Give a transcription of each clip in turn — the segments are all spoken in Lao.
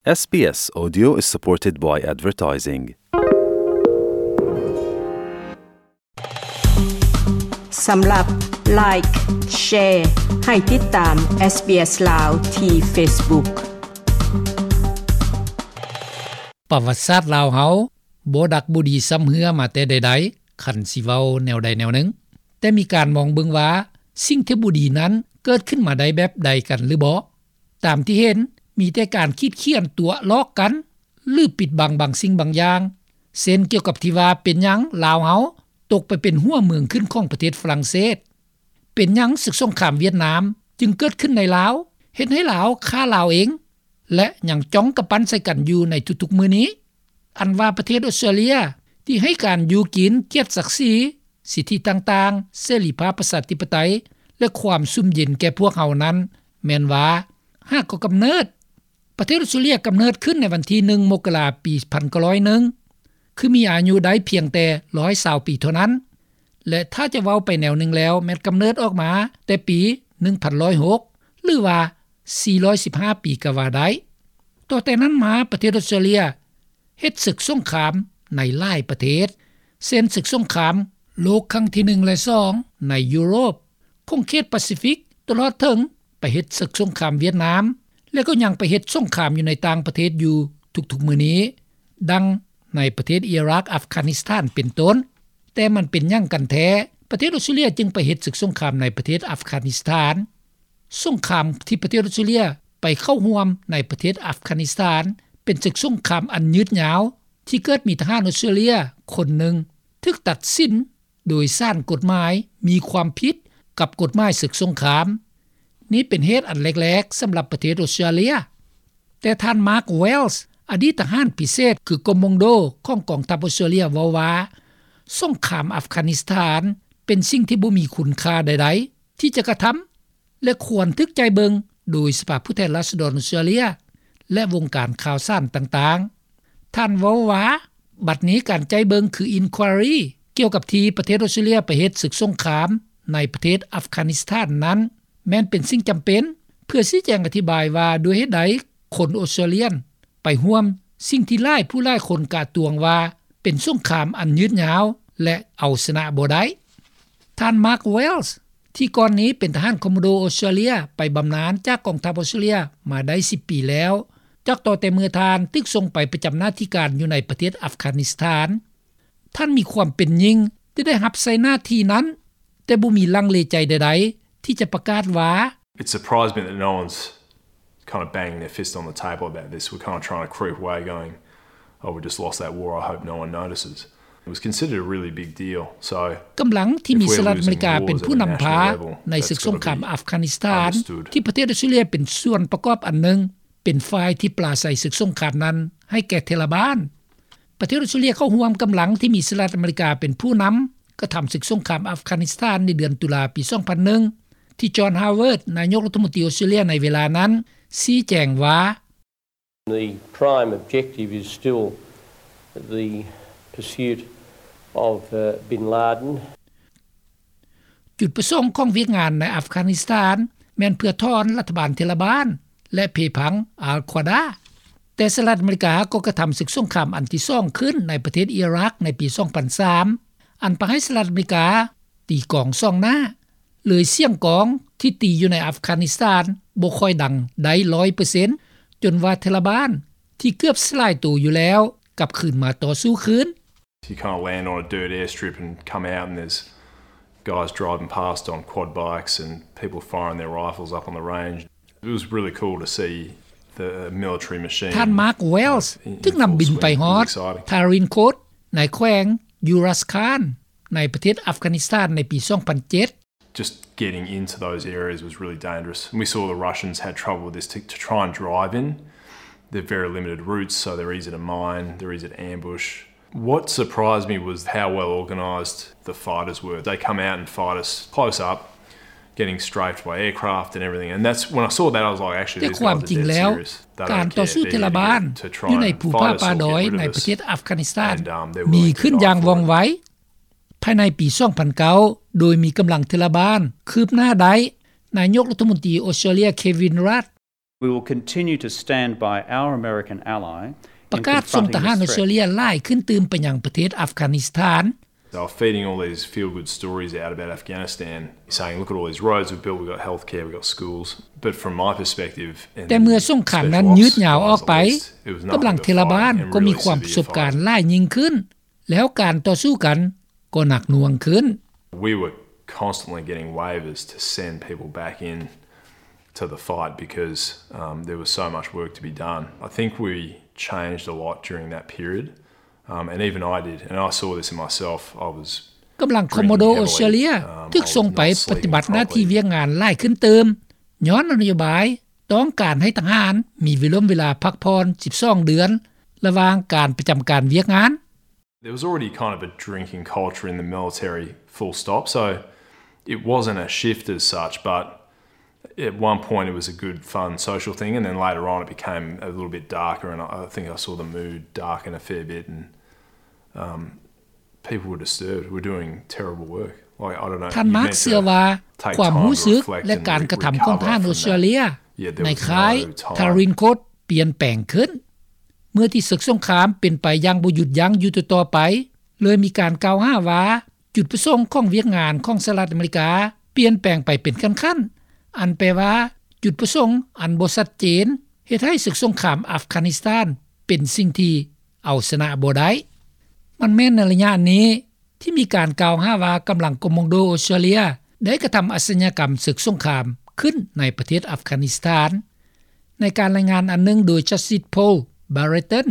SBS Audio is supported by advertising. ສຳລັບ Like, Share ໃຫ້ຕິດຕາມ SBS ລາວທີ່ Facebook. ປະຫວັດສາດລາວເຮົາບໍ່ດັກບໍ່ດີຊ້ຳເຮື້ອມາແຕ່ໃດໆ ຄັນຊິເວົ້າແນວໃດແນວໜຶ່ງ, ແຕ່ມີການມອງເບິ່ງວ່າ ສິ່ງທີ່ບໍ່ດີນັ້ນເກີດຂຶ້ນມາໄດ້ແບບໃດກັນຫຼືບໍ່? ຕາມທີ່ເຫັນ ມີແຕ່ການຂີດຂຽນຕົວະລອກກັນ ຫຼື ປິດບັງບາງສິ່ງບາງຢ່າງ, ເຊັ່ນ ກ່ຽວກັບທີ່ວ່າເປັນຫຍັງລາວເຮົາຕົກໄປເປັນຫົວເມືອງຂຶ້ນຂອງປະເທດຝຣັ່ງເສດ, ເປັນຫຍັງສຶກສົງຄາມຫວຽດນາມຈຶ່ງເກີດຂຶ້ນໃນລາວ, ເຮັດໃຫ້ລາວຂ້າລາວເອງ ແລະ ຍັງຈ້ອງກຳປັ້ນໃສ່ກັນຢູ່ໃນທຸກໆມື້ນີ້. ອັນວ່າປະເທດອົດສະຕຣາເລຍທີ່ໃຫ້ການຢູ່ກິນ, ກຽດສັກສີ, ສິດທິຕ່າງໆ, ເສລີພາບ, ປະຊາທິປະໄຕ ແລະ ຄວາມຊຸ່ມເຢັນແກ່ພວກເຮົານັ້ນ ແມ່ນວ່າຫາກໍກຳເນີດ. ປະເທດອົດສະຕຣາເລຍກຳເນີດຂຶ້ນໃນວັນທີໜຶ່ງ ມົກກະລາ ປີພັນເກົ້າຮ້ອຍໜຶ່ງ ຄືມີອາຍຸໄດ້ພຽງແຕ່ຮ້ອຍຊາວປີເທົ່ານັ້ນ ແລະ ຖ້າຈະເວົ້າໄປແນວໜຶ່ງແລ້ວ ແມ່ນກຳເນີດອອກມາແຕ່ປີໜຶ່ງພັນຮ້ອຍຫົກ ຫຼືວ່າສີ່ຮ້ອຍສິບຫ້າປີກໍວ່າໄດ້. ຕໍ່ແຕ່ນັ້ນມາ ປະເທດອົດສະຕຣາເລຍເຮັດເສິກສົງຄາມໃນຫຼາຍປະເທດ ເຊັ່ນ ເສິກສົງຄາມໂລກຄັ້ງທີໜຶ່ງ ແລະ ສອງ ໃນຢູໂຣບ, ຂົງເຂດປາຊີຟິກ, ຕະຫຼອດເຖິງໄປເຮັດເສິກສົງຄາມຫວຽດນາມ ແລະ ກໍຍັງໄປເຮັດສົງຄາມຢູ່ໃນຕ່າງປະເທດຢູ່ທຸກໆມື້ນີ້, ດັ່ງໃນປະເທດອີຣັກ, ອັຟການິສຖານ ເປັນຕົ້ນ. ແຕ່ມັນເປັນຫຍັງກັນແທ້ ປະເທດອົດສະຕຣາເລຍຈຶ່ງໄປເຮັດເສິກສົງຄາມໃນປະເທດອັຟການິສຖານ? ສົງຄາມທີ່ປະເທດອົດສະຕຣາເລຍໄປເຂົ້າຮ່ວມໃນປະເທດອັຟການິສຖານ ເປັນເສິກສົງຄາມອັນຍືດຍາວ ທີ່ເກີດມີທະຫານອົດສະຕຣາເລຍຄົນໜຶ່ງຖືກຕັດສິນໂດຍສານກົດໝາຍມີຄວາມຜິດກັບກົດໝາຍເສິກສົງຄາມ. ນີ້ເປັນເຫດອັນແລກໆສຳລັບປະເທດອົດສະຕຣາເລຍ. ແຕ່ທ່ານ ມາກ ເວລສ໌ ອະດີດທະຫານພິເສດ ຄື ກອມມອງໂດ ຂອງກອງທັບອົດສະຕຣາເລຍ ເວົ້າວ່າ ສົງຄາມອັຟການິສຖານເປັນສິ່ງທີ່ບໍ່ມີຄຸນຄ່າໃດໆທີ່ຈະກະທຳ ແລະ ຄວນຖືກໃຈເບິ່ງໂດຍສະພາຜູ້ແທນລາຊະດອນອົດສະຕຣາເລຍ ແລະ ວົງການຂ່າວສານຕ່າງໆ. ທ່ານເວົ້າວ່າ ບັດນີ້ການໃຈເບິ່ງຄື Inquiry ກ່ຽວກັບທີ່ປະເທດອົດສະຕຣາເລຍໄປເຮັດເສິກສົງຄາມໃນປະເທດອັຟການິສຖານນັ້ນ ແມ່ນເປັນສິ່ງຈຳເປັນ ເພື່ອຊີ້ແຈງອະທິບາຍວ່າດ້ວຍເຫດໃດຄົນອົດສະຕຣາເລຍນ ໄປຮ່ວມສິ່ງທີ່ຫຼາຍຜູ້ຫຼາຍຄົນກະຕວງວ່າເປັນສົງຄາມອັນຍືດຍາວ ແລະ ເອົາຊະນະບໍ່ໄດ້. ທ່ານ ມາກ ເວລສ໌ ທີ່ກ່ອນນີ້ເປັນທະຫານຄອມໂມໂດອົດສະຕຣາເລຍ ໄປບຳນານຈາກກອງທັບອົດສະຕຣາເລຍມາໄດ້ສິບປີແລ້ວ ຈາກຕໍ່ແຕ່ເມື່ອທ່ານຖືກສົ່ງໄປປະຈຳໜ້າທີ່ການຢູ່ໃນປະເທດອັຟການິສຖານ. ທ່ານມີຄວາມເປັນຍິ່ງທີ່ໄດ້ຮັບໃຊ້ໜ້າທີ່ນັ້ນ ແຕ່ບໍ່ມີລັງເລໃຈໃດໆທີ່ຈະປະກາດວ່າ It surprised me that no one's kind of banging their fist on the table about this. We're kind of trying to creep away going, "Oh, we just lost that war. I hope no one notices." It was considered a really big deal. So ກຳລັງທີ່ມີສະຫະລັດອາເມລິກາເປັນຜູ້ນຳພາໃນເສິກສົງຄາມອັຟການິສຖານ ທີ່ປະເທດອົດສະຕຣາເລຍເປັນສ່ວນປະກອບອັນໜຶ່ງ ເປັນຝ່າຍທີ່ປາໃສເສິກສົງຄາມນັ້ນໃຫ້ແກ່ເທລະບານ. ປະເທດອົດສະຕຣາເລຍເຂົ້າຮ່ວມກຳລັງທີ່ມີສະຫະລັດອາເມລິກາເປັນຜູ້ນຳ ກະທຳເສິກສົງຄາມອັຟການິສຖານໃນເດືອນຕຸລາປີສອງພັນໜຶ່ງ ທີ່ ຈອນ ຮາວເວີດ ນາຍົກລັດຖະມົນຕີອົດສະຕຣາເລຍໃນເວລານັ້ນ ຊີ້ແຈງວ່າ The prime objective is still the pursuit of, uh, bin Laden. ຈຸດປະສົງຂອງວຽກງານໃນອັຟການິສຖານ ແມ່ນເພື່ອຖອນລັດຖະບານເທລະບານ ແລະ ເພພັງອາລຄວາດາ. ແຕ່ສະຫະລັດອາເມລິກາກໍກະທຳເສິກສົງຄາມອັນທີສອງຂຶ້ນໃນປະເທດອີຣັກໃນປີສອງພັນສາມ ອັນປະໃຫ້ສະຫະລັດອາເມລິກາຕີກອງສອງໜ້າ ເລີຍສຽງກອງທີ່ຕີຢູ່ໃນອັຟການິສຖານບໍ່ຄ່ອຍດັງໄດ້ຮ້ອຍເປີເຊັນ ຈົນວ່າເທລະບານທີ່ເກືອບສະຫຼາຍໂຕຢູ່ແລ້ວ ກັບຄືນມາຕໍ່ສູ້ຄືນ. You can't land on a dirt airstrip and come out and there's guys driving past on quad bikes and people firing their rifles up on the range. It was really cool to see the military machine. ທ່ານ ມາກ ເວລສ໌ ຖືກນຳບິນໄປຮອດ ທາຣິນໂຄດ ໃນແຂວງຢູຣັສຄານ ໃນປະເທດອັຟການິສຖານໃນປີສອງພັນເຈັດ. Just getting into those areas was really dangerous. And we saw the Russians had trouble with this to, to try and drive in. They're very limited routes, so they're easy to mine, they're easy to ambush. What surprised me was how well organised the fighters were. They come out and fight us close up, getting strafed by aircraft and everything. And that's when I saw that, I was like, actually, these guys are dead serious. They don't care. They're here to, to try and fight us or get rid of us. ແຕ່ຄວາມຈິງແລ້ວ ການຕໍ່ສູ້ເທລະບານຢູ່ໃນປະເທດອັຟການິສຖານ ມີຂຶ້ນຢ່າງວ່ອງໄວ. ພາຍໃນປີສອງພັນເກົ້າ ໂດຍມີກຳລັງເທລະບານຄືບໜ້າໄດ້, ນາຍົກລັດຖະມົນຕີອົດສະຕຣາເລຍ ເຄວິນ ຣາດ We will continue to stand by our American ally ປະກາດສົ່ງທະຫານອອສເຕຣເລຍຫຼາຍຂຶ້ນຕື່ມໄປຍັງປະເທດອັຟການິສຖານ. They were feeding all these feel-good stories out about Afghanistan, saying, "Look at all these roads we've built, we've got healthcare, we've got schools." But from my perspective, ແຕ່ເມື່ອສົງຄາມນັ້ນຍືດຍາວອອກໄປ, ກຳລັງເທລະບານກໍມີຄວາມປະສົບການຫຼາຍຍິ່ງຂຶ້ນ, ແລ້ວການຕໍ່ສູ້ກັນກໍໜັກໜ່ວງຂຶ້ນ. We were constantly getting waivers to send people back in to the fight because, um, there was so much work to be done. I think we changed a lot during that period, um, and even I did, and I saw this in myself. I was ກຳລັງຄອມໂມໂດ ອອສເຕຣເລຍ ຖືກສົ່ງໄປປະຕິບັດໜ້າທີ່ວຽກງານຫຼາຍຂຶ້ນຕື່ມ ຍ້ອນນະໂຍບາຍຕ້ອງການໃຫ້ທະຫານມີເວລົມເວລາພັກຜ່ອນສິບສອງເດືອນ ລະຫວ່າງການປະຈຳການວຽກງານ. There was already kind of a drinking culture in the military, full stop. So it wasn't a shift as such, but at one point it was a good, fun, social thing, and then later on it became a little bit darker, and I, I think I saw the mood darken a fair bit, and, um, people were disturbed. We're doing terrible work. Like, I don't know, ທ່ານມາກເຊື່ອວ່າ ຄວາມຮູ້ສຶກ ແລະ ການກະທຳຂອງທະຫານອອສເຕຣເລຍ ໃນຄ້າຍທາຣິນໂຄດ ປ່ຽນແປງຂຶ້ນ. ເມື່ອທີ່ເສິກສົງຄາມເປັນໄປຢ່າງບໍ່ຢຸດຢັ້ງຢູ່ຕໍ່ໆໄປ, ເລີຍມີການກ່າວຫາວ່າ ຈຸດປະສົງຂອງວຽກງານຂອງສະຫະລັດອາເມລິກາປ່ຽນແປງໄປເປັນຂັ້ນໆ, ອັນແປວ່າ ຈຸດປະສົງອັນບໍ່ຊັດເຈນ ເຮັດໃຫ້ເສິກສົງຄາມອັຟການິສຖານເປັນສິ່ງທີ່ເອົາຊະນະບໍ່ໄດ້. ມັນແມ່ນໃນໄລຍະນີ້ ທີ່ມີການກ່າວຫາວ່າກຳລັງຄອມໂມໂດອອສເຕຣເລຍໄດ້ກະທຳອາຊະຍາກຳເສິກສົງຄາມຂຶ້ນໃນປະເທດອັຟການິສຖານ. ໃນການລາຍງານອັນໜຶ່ງໂດຍ Justice Paul Barreton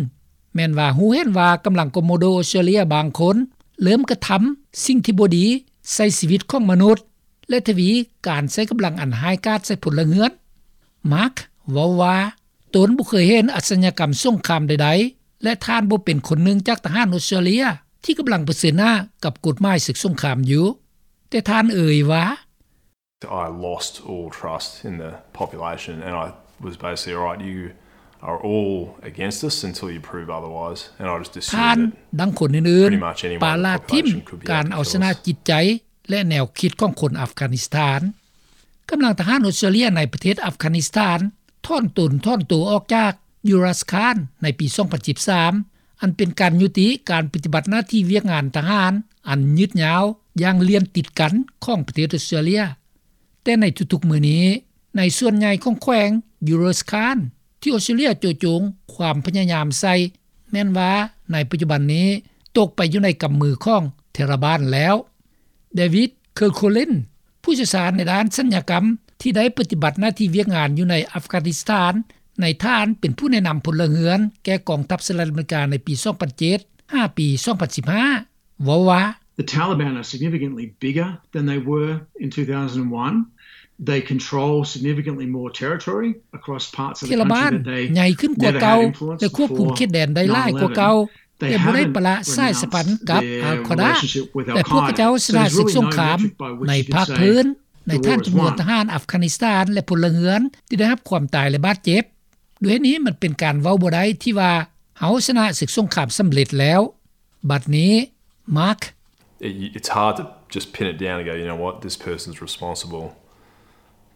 ແມ່ນວ່າຮູ້ເຫັນວ່າກຳລັງຄອມໂມໂດອອສເຕຣເລຍບາງຄົນເລີ່ມກະທຳສິ່ງທີ່ບໍ່ດີໃສ່ຊີວິດຂອງມະນຸດ ແລະ ທະວີການໃຊ້ກຳລັງອັນຮ້າຍກາດໃສ່ພົນລະເຮືອນ. Mark ເວົ້າວ່າ ຕົນບໍ່ເຄີຍເຫັນອາຊະຍາກຳສົງຄາມໃດໆ ແລະ ທ່ານບໍ່ເປັນຄົນໜຶ່ງຈາກທະຫານອອສເຕຣເລຍທີ່ກຳລັງປະເຊີນໜ້າກັບກົດໝາຍເສິກສົງຄາມຢູ່. ແຕ່ທ່ານເອີ່ຍວ່າ I lost all trust in the population and I was basically, "All right, you are all against us until you prove otherwise." And I just assumed that pretty much anyone in the population could be out to kill us. ທ່ານ ດັ່ງຄົນອື່ນໆ ປະລາດຖິ້ມການເອົາຊະນະຈິດໃຈ ແລະ ແນວຄິດຂອງຄົນອັຟການິສຖານ. ກຳລັງທະຫານອອສເຕຣເລຍໃນປະເທດອັຟການິສຖານຖອນຕົນຖອນໂຕອອກຈາກຢູຣັສຄານໃນປີສອງພັນສິບສາມ ອັນເປັນການຍຸຕິການປະຕິບັດໜ້າທີ່ວຽກງານທະຫານອັນຍືດຍາວຢ່າງລຽນຕິດກັນຂອງປະເທດອອສເຕຣເລຍ. ແຕ່ໃນທຸກໆມື້ນີ້ ໃນສ່ວນໃຫຍ່ຂອງແຂວງຢູຣັສຄານ ທີ່ອອສເຕຣເລຍໂຈະຈົງຄວາມພະຍາຍາມໃສ່ ແມ່ນວ່າໃນປັດຈຸບັນນີ້ຕົກໄປຢູ່ໃນກຳມືຂອງເທລະບານແລ້ວ. ເດວິດ ເຄີໂຄລິນ ຜູ້ຊ່ຽວຊານໃນດ້ານສັນຍາກຳ ທີ່ໄດ້ປະຕິບັດໜ້າທີ່ວຽກງານຢູ່ໃນອັຟການິສຖານ ໃນຖານເປັນຜູ້ແນະນຳພົນລະເຮືອນແກ່ກອງທັບສະຫະລັດອາເມລິກາໃນປີສອງພັນເຈັດ ຫາປີສອງພັນສິບຫ້າ ເວົ້າວ່າ The Taliban are significantly bigger than they were in two thousand one. They control significantly more territory across parts of the country that they never had influence before nine eleven. ເທລະບານໃຫຍ່ຂຶ້ນກວ່າເກົ່າ ແລະ ຄວບຄຸມເຂດແດນໄດ້ຫຼາຍກວ່າເກົ່າ ແຕ່ບໍ່ໄດ້ປະລະສາຍສຳພັນກັບອັລຄອດາ ແລະ ພວກເຂົາເຈົ້າຊະນະເສິກສົງຄາມໃນພາກພື້ນ ໃນຖານຈຳນວນທະຫານອັຟການິສຖານ ແລະ ພົນລະເຮືອນທີ່ໄດ້ຮັບຄວາມຕາຍ ແລະ ບາດເຈັບ. ດ້ວຍນີ້ມັນເປັນການເວົ້າບໍ່ໄດ້ທີ່ວ່າເຮົາຊະນະເສິກສົງຄາມສຳເລັດແລ້ວ. ບັດນີ້ Mark It, it's hard to just pin it down and go, "You know what, this person's responsible."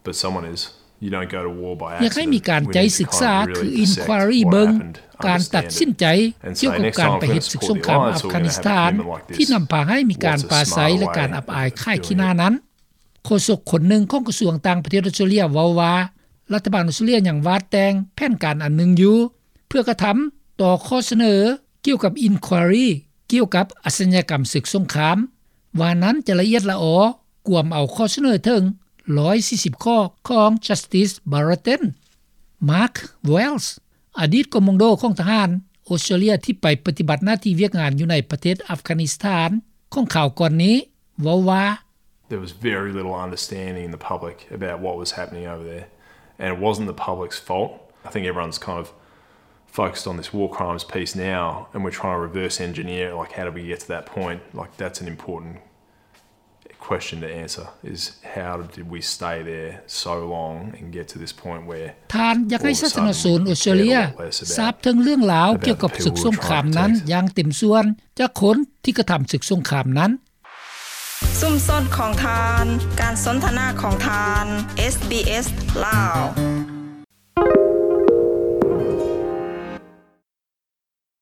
But someone is. You don't go to war by accident. ຢາກໃຫ້ມີການໃຈສຶກສາ ຄື inquiry ເບິ່ງການຕັດສິນໃຈກ່ຽວກັບການໄປເຮັດເສິກສົງຄາມອັຟການິສຖານ ທີ່ນຳພາໃຫ້ມີການປາໄສ ແລະ ການອັບອາຍຂາຍຂີ້ໜ້ານັ້ນ. ໂຄສົກຄົນໜຶ່ງຂອງກະຊວງຕ່າງປະເທດອອສເຕຣເລຍເວົ້າວ່າ ລັດຖະບານອອສເຕຣເລຍຍັງວາດແຕ່ງແຜນການອັນໜຶ່ງຢູ່ ເພື່ອກະທຳຕໍ່ຂໍ້ສະເໜີ ກ່ຽວກັບ inquiry ກ່ຽວກັບອາຊະຍາກຳເສິກສົງຄາມ ວ່ານັ້ນຈະລະອຽດລະອໍ ກວມເອົາຂໍ້ສະເໜີເຖິງຮ້ອຍສີ່ສິບຂໍ້ຂອງ Justice Barreton. Mark Wells ອະດີດຄອມໂມໂດຂອງທະຫານອອສເຕຣເລຍທີ່ໄປປະຕິບັດໜ້າທີ່ວຽກງານຢູ່ໃນປະເທດອັຟການິສຖານ ຂອງຄາວກ່ອນນີ້ ເວົ້າວ່າ There was very little understanding in the public about what was happening over there, and it wasn't the public's fault. I think everyone's kind of focused on this war crimes piece now, and we're trying to reverse engineer, like, how did we get to that point? Like, that's an important question to answer, is how did we stay there so long and get to this point where ທ່ານຢາກໃຫ້ສາທາລະນະຊົນອອສເຕຣເລຍຊາບເຖິງເລື່ອງລາວກ່ຽວກັບເສິກສົງຄາມນັ້ນຢ່າງເຕັມສ່ວນ ຈາກຄົນທີ່ກະທຳເສິກສົງຄາມນັ້ນ. ຊຸມຊົນຂອງທ່ານ, ການສົນທະນາຂອງທ່ານ, ເອສບີເອສ ລາວ.